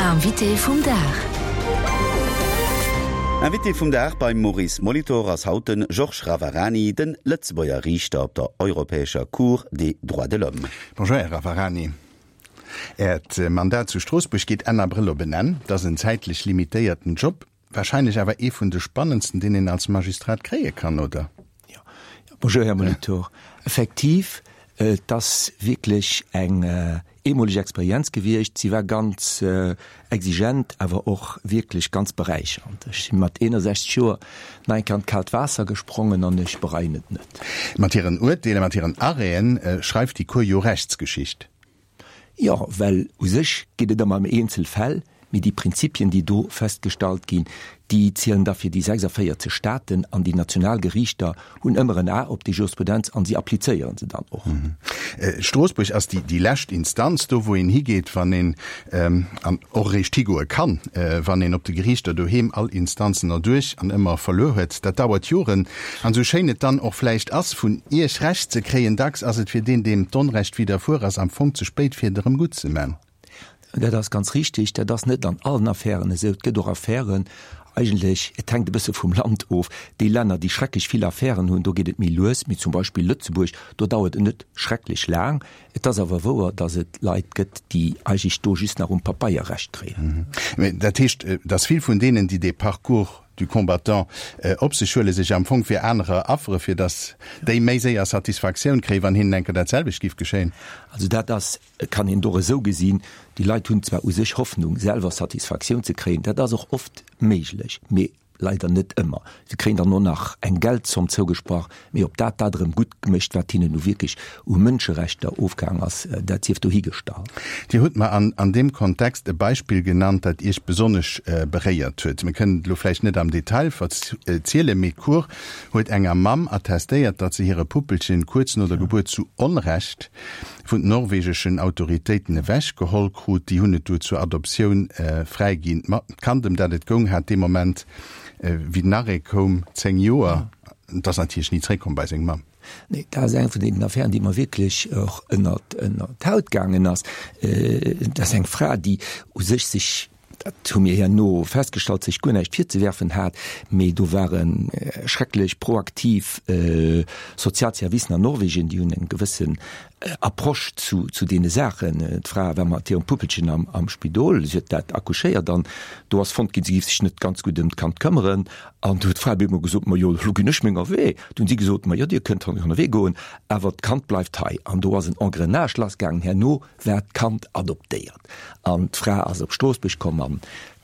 Invité vum Dag. Invité vum Dag beim Maurice Molitor ass haut de Georges Ravarani, de Lëtzebuerger Riichter op der Europäescher Cour des droits de l'homme. Bonjour Här Ravarani. Äert Mandat zu Stroossbuerg geet Enn Abrëll op en Enn. Dat ass en zäitlech limitéierten Job. Wahrscheinlech awer ee vun de spannendsten, deen een als Magistrat kréie kann, oder? Jo. Bonjour, Här Molitor. Effektiv, et ass wierklech eng eemoleg Experienz gewiescht. Si war ganz exigent, awer och wierklech ganz beräichernd. Ech si mat 61 Joer nach eng Kéier an d'kaalt Waasser gesprongen an ech bereien et net. Mat hiren Urteeler, mat hiren Arrêten schreift déi Cour jo Rechtsgeschicht. Jo, well u sech geet et ëmmer ëm eenzel Fäll, mee déi Prinzipien, déi do festgestallt ginn, déi zielen da fir déi 46 Staaten an déi national Geriichter hunn ëmmer en A op déi Jurisprudenz an si applizéieren se dann och. Stroossbuerg ass déi lescht Instanz, do wou een higeet, wann een, an och eréischt higoe kann, wann een op de Geriichter doheem all Instanzen erduerch an ëmmer verluer huet. Dat dauert Joren. An esou schéin et dann och vläicht ass, vun Iech Recht ze kréien, dacks ass et fir deen, deem d'Onrecht widderfuer ass, am Fong ze spéit, fir et erëm gutt ze man. Dat ass ganz richtig. Dat ass net an allen Affären esou. Et gëtt och Affären, eigentlech, et hänkt e bësse vum Land of, déi Länner, déi schrecklech vill Affären hunn, do geet et méi lues, mee zum Beispill Lëtzebuerg, do dauert et net schrecklech laang. Et ass awer wouer, datt et Leit gëtt, déi eigentlech do just nach um Pabeier Recht kréien. Mee dat heescht, datt vill vun deenen, déi dee Parcours du combattant op sech huelen, sech am Fong fir anerer affere, fir datt déi méi séier Satisfaktioun kréien, wann hinnen eng Kéier dat selwecht giff geschéien? Also dat ass, kann een och esou gesinn, déi Leit hunn zwar u sech Hoffnung, selwer Satisfaktioun ze kréien, dat ass och oft méiglech, mee leider net ëmmer. Se kréien dann och nach eng Geldzomm zougesprach, mee ob dat dat erëm gutt mécht, wat hinnen nu wierklech u Mënscherechter ofgaang ass, dat sief dohigestallt. Dir hutt mer an deem Kontext e Beispill genannt, dat Iech besonnesch beréiert huet. Mir kënnen et elo vläicht net am Detail verzielen, mee d'Cour huet enger Mamm attestéiert, datt se hire Puppelchen kuerz no der Gebuert zu Onrecht vun den norwegeschen Autoritéiten ewech geholl krut. Déi hunn et du zur Adoptioun fräiginn. D'Kand, ëm dat et goung, hat dee Moment, wéi den Arrêt koum, 10 Joer. Et ass natierlech ni zréckkomm bei seng Mamm. Nee, dat ass eng vun deenen Affären, déi mer wierklech och ënnert d'Haut gaangen ass. Dat ass eng Fra, déi u sech sech, dat hu mir herno festgestallt, sech guer näischt virzewerfen hat, mee do ware schrecklech proaktiv Sozialservicen an Norwegen, déi hunn eng gewëssen Approche zu zu deene Saachen. D'Fra war mat hirem Puppelchen am am Spidol, si huet dat accouchéiert an do ass fonnt ginn, si géif sech net ganz gutt ëm d'Kand këmmeren. An du huet d'Fra op eemol gesot, Ma jo, elo ginn ech menger Wee. Du hunn si gesot, Ma jo, Dir kënnt honnewee goen, awer d'Kand bleift hei. An do ass en Engrenage lassgaangen. Herno war d'Kand adoptéiert an d'Fra ass op Stroossbuerg komm. An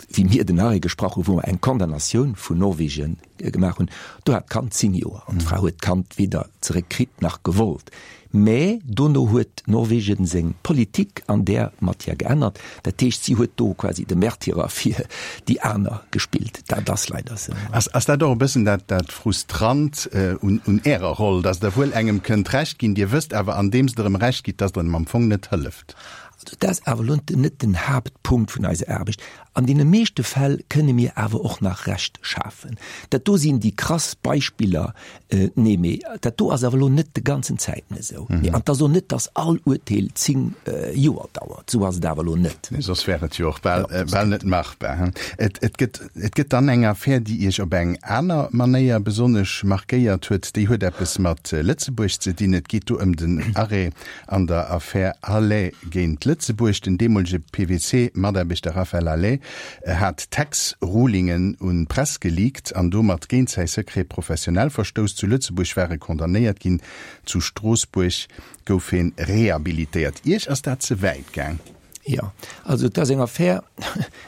wéi mir den Arrêt gesprach hunn, wou mer eng Condamnatioun vun Norwegen gemaach hunn, do hat d'Kand 10 Joer an d'Fra huet d'Kand weder zeréck kritt nach gewollt. Mä dono huet Norwegen seng Politik an där Matière geännert. Dat heescht, si huet do quasi de Märtyrer fir déi aner gespillt. Dat ass leider esou. Ass dat och e bëssen dat Frustrant un Ärer Roll, datt Der wuel engem kënnt Recht ginn, Dir wësst awer, andeems Der em Recht gitt, datt Der em am Fong net hëlleft? Also dat ass awer elo net den Haaptpunkt vun eiser Aarbecht. An deene meeschte Fäll kënne mir awer och nach Recht schafen. Dat do sinn déi krass Beispiller. Nee, mee dat do ass awer elo net de ganzen Zäiten esou. Mee an et ass och net, datt all Urteel 10 Joer dauert. Esou ass et awer elo net. Nee, soss wär et jo och bal, bal net machbar. Et, et gëtt, et gëtt dann eng Affär, déi Iech op eng aner Manéier besonnesch markéiert huet. Déi huet eppes mat Lëtzebuerg ze dinn. Et geet do ëm den Arrêt An der Affär Halet géint Lëtzebuerg, den deemolege PwC-Mataarbechter Raphaël Halet hat Tax-Rulingen un d'Press geleakt an domat géint säi Secret professionnel verstouss. Zu Lëtzebuerg war e condamnéiert ginn, zu Stroossbuerg gouf heen rehabilitéiert. Iech ass dat ze wäit gaang? Jo, also et ass eng Affär,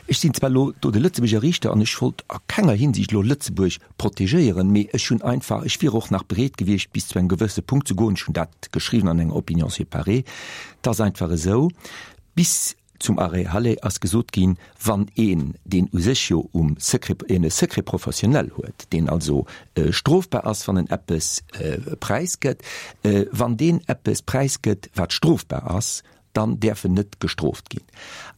ech sinn zwar elo do de Lëtzebuerger Riichter an ech wollt a kenger Hinsicht elo Lëtzebuerg protegéieren, mee ech hunn einfach, ech wier och nach bereet gewiescht bis zu engem gewësse Punkt ze goen, ech hunn dat geschriwwen an enger Opinion séparée, et ass einfach esou, bis zum Arrêt Halle ass gesot ginn, wann een, deen u sech jo um Secret, een e Secret professionnel huet, deen also strofbar ass, wann en eppes präisgëtt, wann deen eppes präisgëtt, wat strofbar ass,. Dann däerf en net gestrooft ginn.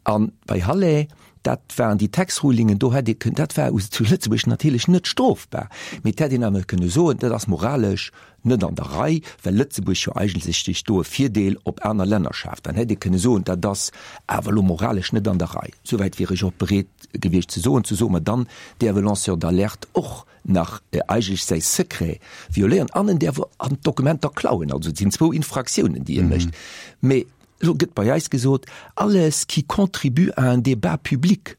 A bei Halle, dat waren déi Tax-Rulingen, do hätt ee kënnen, dat war zu Lëtzebuerg natierlech net strofbar, mee et hätt een awer kënne soen, dat ass moralesch net an der Rei, well Lëtzebuerg jo eigentlech sech do e Virdeel op aner Länner schaaft. Dann hätt ee kënne soen, dat ass awer elo moralesch net an der Rei. Souwäit wier ech och bereet gewiescht ze soen, ze soen, ma dann däerf e Lanceur d'alerte och nach eigentlech säi Secret violéieren an en däerf an d'Dokumenter klauen. Also et sinn zwou Infraktiounen, déi e mécht. Mee elo gëtt bei eis gesot, alles qui contribue à un débat public.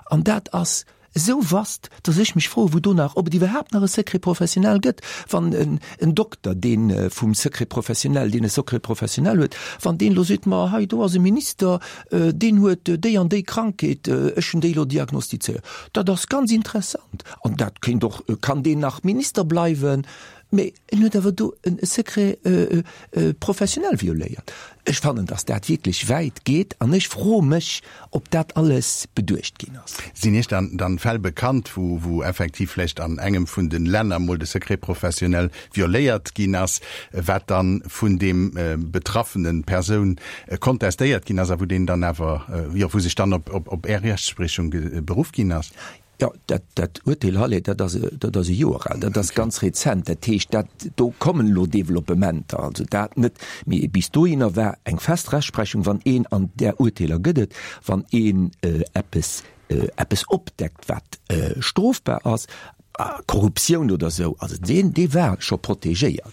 An dat ass esou vast, datt ech mech froen, wou do nach, ob et iwwerhaapt nach e Secret professionnel gëtt, wann en Dokter, dee vum Secret professionnel, deen e Secret professionnel huet, wann deen elo seet, ma hei do ass e Minister, deen huet déi an déi Krankheet, ech hunn déi elo diagnostizéiert, dat ass ganz interessant an dat kéint och, kann deen nach Minister bleiwen, mee en huet awer do e Secret professionnel violéiert. Ech fannen, datt dat wierklech wäit geet an ech froe mech, ob dat alles beduecht ginn ass. Sinn Iech dann dann Fäll bekannt, wou wou effektiv vläicht an engem vun de Länner mol de Secret professionnel violéiert ginn ass, wat dann vun deem betraffenen Persoun kontestéiert ginn ass a wou deen dann awer, jo, wou sech dann op op op Är Rechtspriechung beruff ginn ass? Jo, dat, dat Urteel Halle, dat ass, dat ass e Joer al, dat ass ganz rezent. Dat heescht, dat, do kommen elo Developpementer, also dat net. Mee bis dohinner war eng fest Rechtsprechung, wann een, an där Urteeler gëtt et, wann een eppes, eppes opdeckt, wat strofbar ass, Korruptioun oder esou, also deen, dee war scho protegéiert.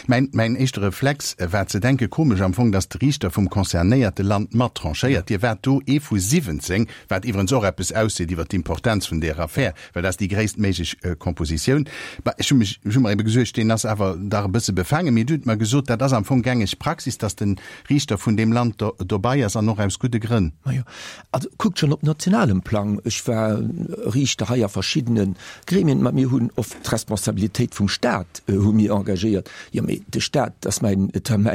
Mäin, mäin éischte Reflex war ze denken, komesch am Fong, datt de Riichter vum concernéierte Land mat tranchéiert. Dir waart do ee vu 17, wat iwwerens och eppes ausseet iwwer d'Importenz vun där Affär, well dat ass déi gréisst méiglech Kompositioun. Bah, ech hu mech, ech hu mer ebe gesuergt, deen ass awer dach e bësse befaangen. Mee Dir hutt mer gesot, dat ass am Fong gängeg Praxis, datt de Riichter vun deem Land do, dobei ass an och aus gudde Grënn. Majo, also kuckt schonn op nationalem Plang, ech war Riichter hei a verschiddene Gremien, ma mir hunn oft d'Responsabilitéit vum Staat hu mir engagéiert. Jo, mee de Staat ass mäin,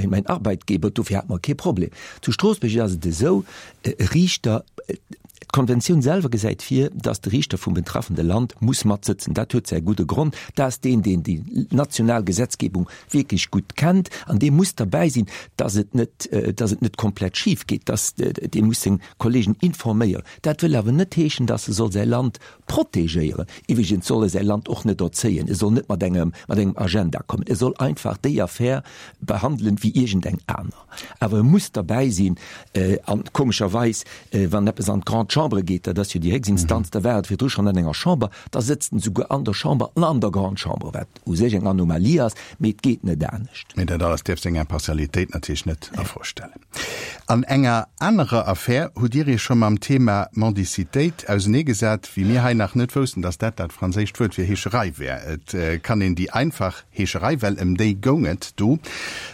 mäin Arbeitgeber, dofir hate mer kee Problem. Zu Stroossbuerg ass et esou, E Riichter, d'Konventioun selwer gesäit vir, dass de Riichter vum betraffende Land muss matsëtzen. Dat huet säi gudde Grond, Dat ass deen, deen déi national Gesetzgebung wierklech gutt kennt an dee muss derbäi sinn, dass et net, dass et net komplett schif geet, dass dee muss seng Kollegen informéieren. Dat wëll awer net heeschen, dass e soll säi Land protegéieren. Iwwregens soll e säi Land och net erzéien, e soll net mat engem, mat engem Agenda kommen, e soll einfach déi Affär behandelen wéi iergendeng aner. Awer e muss derbäi sinn. An komescherweis, wann eppes an d'Grande Chambre geet, dat ass jo déi héchst Instanz, da war et virdru schonn an enger Chamber, da sëtzt en souguer an der Chamber an an der Grande Chambre, wat u sech eng Anomalie ass, mee et geet net anescht. Mee dat alles däerf seng Impartialitéit natierlech net a Fro stellen. An enger anerer Affär hutt Dir Iech scho mam Thema Mendicitéit auseneegesat, wéi mir hei nach net woussten, datt dat dat franséischt Wuert fir Heescherei wär. Et kann een déi einfach Heescherei, well ëm déi goung et do,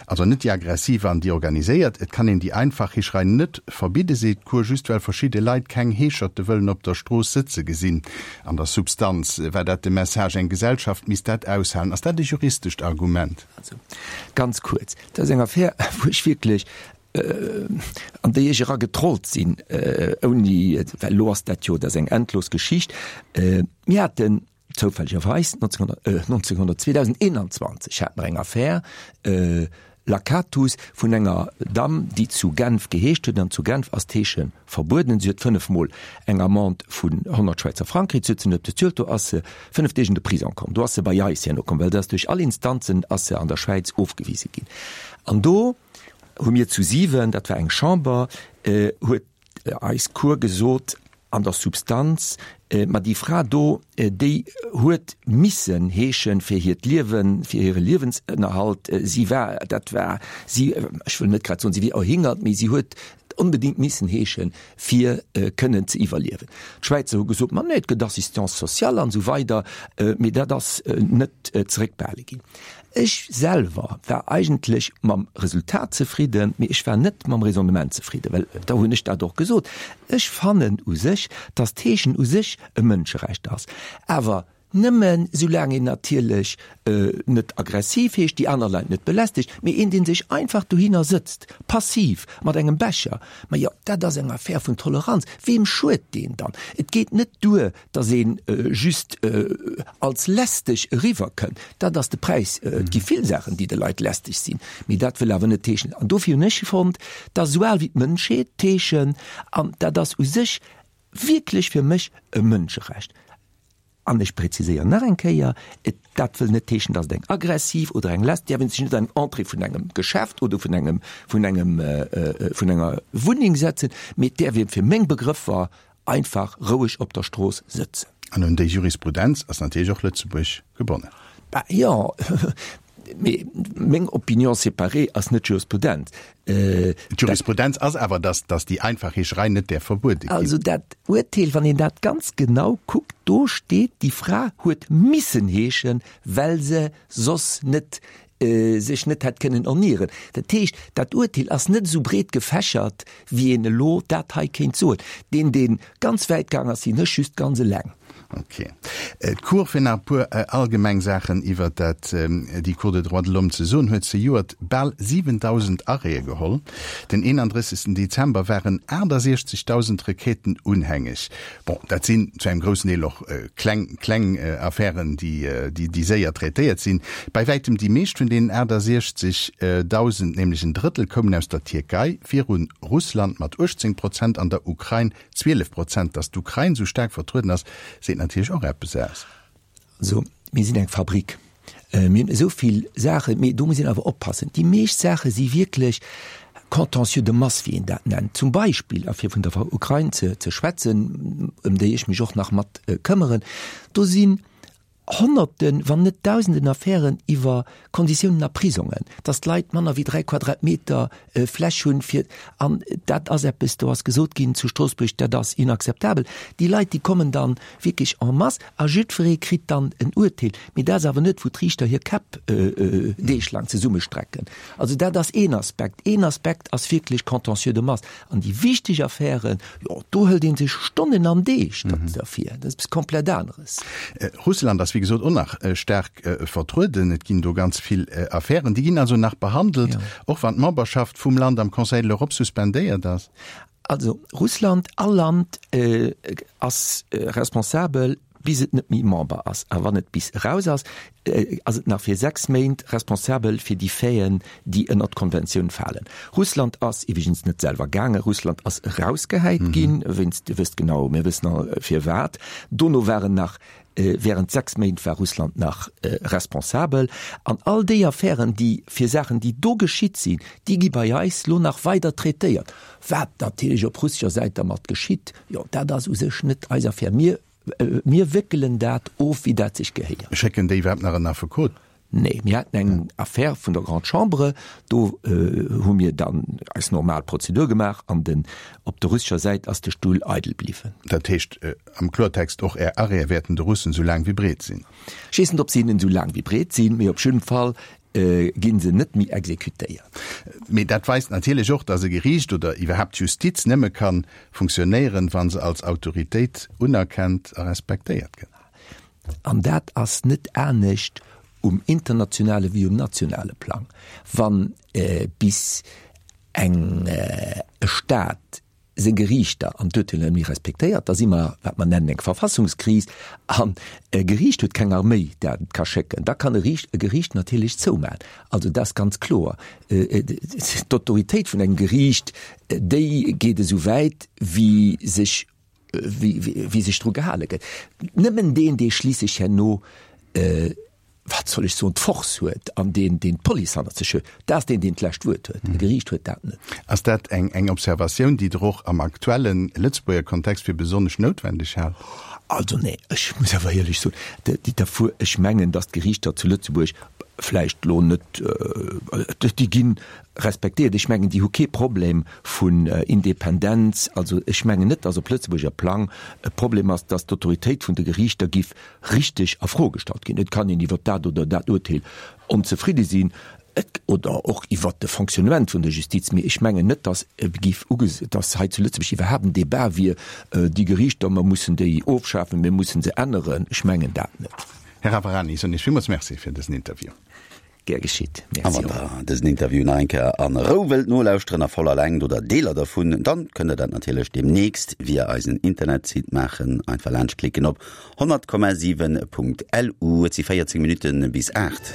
also net déi aggressiv an déi organiséiert. Et kann een déi einfach Heescherei net verbidde, seet d'Cour, just well verschidde Leit keng Heescherte wëllen op der Strooss sëtze gesinn. An der Substanz war dat de Message, eng Gesellschaft misst dat aushalen. Ass dat e juristescht Argument? Also, ganz kuerz, dat ass eng Affär, wou ech wierklech, an déi ech era getrollt sinn, ouni, well elo ass dat jo, dat ass eng endlos Geschicht. Mir haten Zoufällegerweis 1900, 2021 hat mer eng Affär, Lacatus, vun enger Damm, déi zu Genf geheescht huet, an zu Genf ass d'Heesche verbueden. Si huet fënnefmol eng Amende vun 100 Schwäizer Frang kritt, si huet se net bezuelt, do ass se fënnef Deeg an de Prison komm. Do ass se bei eis herno komm, well se ass duerch all Instanzen ass se an der Schwäiz ofgewise ginn. An do hu mir zu siwen, dat war eng Chamber, huet eis Cour gesot, an der Substanz, ma déi Fra do, déi huet missen heeschen fir hiert Liewen, fir hire Liewensënnerhalt. Si war, dat war si, ech wëll net grad soen, si wier erhingert, mee si huet onbedéngt missen heeschen, fir kënnen ze iwwerliewen. D'Schwäizer hu gesot, ma nee, et gëtt Assistance sociale an esou weider, mee dat ass net zeréckbehale ginn. Ech selwer war eigentlech mam Resultat zefridden, mee ech war net mam Raisonnement zefridden, well da hunn ech dat och gesot, ech fannen u sech, dass d'Heeschen u sech e Mënscherecht ass, awer. Nëmmen soulaang een natierlech net aggressiv heescht, déi aner Leit net belästegt, mee een, dee sech einfach dohinner sëtzt, passiv, mat engem Becher, ma jo, dat ass eng Affär vun Toleranz. Weem schued deen dann? Et geet net duer, datt ee just als lästeg eriwwerkënnt. Dat ass de Präis. Et gi vill Saachen, déi de Leit lästeg sinn, mee dat wëll awer net heeschen, an dofir hunn ech fonnt, dat ass esou al wéi d'Mënschheet, d'Heeschen, an dat ass u sech wierklech fir mech e Mënscherecht. An ech präziséieren nach eng Kéier, et, dat wëll net heeschen, datt et eng aggressiv oder eng lästeg, däerf een sech net an Entrée vun engem Geschäft oder vun engem, vun engem, vun enger Wunneng setzen, mee et däerf ee fir meng Begrëffer einfach roueg op der Strooss sëtzen. An un déi Jurisprudenz ass natierlech och Lëtzebuerg gebonnen. Bah jo, mee meng Opinion séparée ass net Jurisprudenz. D'Jurisprudenz ass awer, dass, dass déi einfach Heescherei net däerf verbuede ginn. Also dat Urteel, wann een dat ganz genau kuckt, do steet, déi Fra huet missen heeschen, well se soss net, sech net hätt kënnen ernieren. Dat heescht, dat Urteel ass net esou breet gefächert, wéi een elo dat hei kéint soen. Deen, dee ganz wäit gaang ass, sinn ech just ganz eleng. Ok. D'Cour, fir nach e puer allgemeng Saachen iwwer dat, déi Cour des droits de l'homme ze soen, huet zejoert bal 7.000 Arrêtë geholl. Den 31. Dezember waren 68.000 Requêten unhängeg. Bon, dat sinn zu engem groussen Deel och kleng, kleng Affären, déi, déi séier traitéiert sinn. Bei wäitem déi meescht vun deenen 68.000, nämlech en Drëttel, koumen aus der Tierkei, virun Russland mat 18 Prozent an der Ukrain 12 Prozent. Datt d'Ukrain esou staark vertrueden ass, seet natierlech och eppes aus. Also, mir sinn eng Fabrik. Mir hunn esou vill Saachen, mee do muss een awer oppassen. Déi meescht Saache si wierklech Contentieux de masse, wéi een dat nennt. Zum Beispill, a fir vun der Ukrain ze schwätzen, ëm déi ech mech och nach mat këmmeren, do sinn Honnerten, wann net Dausenden Affären iwwer Konditiounen a Prisongen, dass d'Leit manner wéi 3 Quadratmeter Fläch hunn fir, an dat ass eppes, do ass gesot ginn zu Stroossbuerg, dat ass inakzeptabel. Déi Leit, déi kommen dann wierklech en masse a jiddweree kritt dann en Urteel. Mee dat ass awer net, wou d'Riichter hir Käpp deeglaang zesummestrecken. Also dat ass een Aspekt. Een Aspekt ass wierklech Contentieux de masse. An déi wichteg Affären, jo, do hëlt ee sech Stonnen an Deeg derfir. Dat ass eppes komplett aneres. Russland ass wéi gesot och nach staark vertrueden. Et ginn do ganz vill Affären. Déi ginn also nach behandelt, och wann d'Memberschaft vum Land am Conseil de l'Europe suspendéiert ass. Also Russland, all Land ass responsabel, bis et net méi Member ass. A wann et bis eraus ass, ass et nach fir 6 Méint responsabel fir déi Faiten, déi ënnert d'Konventioun falen. Russland ass iwweregens net selwer gaangen. Russland ass erausgehäit ginn, wéinst, Dir wësst genau, mir wëssen all firwat. Dono waren nach Während 6 Méint war Russland nach responsabel. An all déi Affären, déi fir Saachen, déi do geschitt sinn, déi gi bei eis lo nach weider traitéiert. Wat natierlech op russescher Säit dermat geschitt, jo, dat ass u sech net eis Affär. Mir, mir wéckelen dat of, wéi dat sech gehéiert. Schécken déi iwwerhaapt nach en Affekot? Nee, mir haten eng Affär vun der Grande Chambre, do hu mir dann eis normal Prozedur gemaach an den, op der russescher Säit ass de Stull eidel bliwwen. Dat heescht am Klortext, och Är Arrêtë wäerten de Russen esou laang wéi breet sinn? Ech weess net, ob se hinnen esou laang wéi breet sinn, mee op jidden Fall gi se net méi exekutéiert. Mee dat weist natierlech och, datt e Geriicht oder iwwerhaapt d'Justiz nëmme ka funktionéieren, wa se als Autoritéit unerkennt a respektéiert gëtt. An dat ass net anescht um internationale wéi um nationale Plang. Wann bis eng e Staat seng Geriichter an d'Urteeler net méi respektéiert, da si mer wat mer nennen eng Verfassungskris. An e Geriicht huet keng Arméi, dat et ka schécken. Da kann e Riicht e Geriicht natierlech zoumaachen. Also dat ass ganz kloer. D'Autoritéit vun engem Geriicht, déi geet esou wäit wéi sech wéi sech dru gehale gëtt. Nëmmen deen, dee schliisslech herno, wat soll ech soen, d'Force huet an deen, deen d'Police hannert sech huet, dat ass deen, deen d'lescht Wuert huet. E Geriicht huet dat net. Ass dat eng eng Observatioun, déi Der och am aktuelle Lëtzebuerger Kontext fir besonnesch noutwendeg haalt? Also nee, ech muss awer éierlech soen, ech mengen, datt d'Geriichter zu Lëtzebuerg. Vläicht elo net, déi gi respektéiert. Ech mengen, déi hu kee Problem vun Independenz. Also ech mengen net, datt op Lëtzebuerger Plang e Problem ass, datt d'Autoritéit vun de Geriichter giff richteg a Fro gestallt ginn. Et kann een iwwert dat oder dat Urteel onzefridde sinn oder och iwwert de Fonctionnement vun der Justiz, mee ech mengen net, datt giff uges-, datt hei zu Lëtzebuerg iwwerhaapt en Débat wier, déi Geriichter, mer mussen déi ofschafen, mir mussen se änneren. Ech mengen dat net. Här Ravarani, ech soen Iech villmools Merci fir dësen Interview. Gär geschitt. A Merci wann och. der dësen Interview nach eng Kéier an Rou wëllt nolauschteren, a voller Längt oder Deeler dervun, dann kënnt der dat natierlech demnächst via eisen Internetsite maachen. Einfach laanscht klicken op 100,7.lu. Et si 14 Minutten bis 8.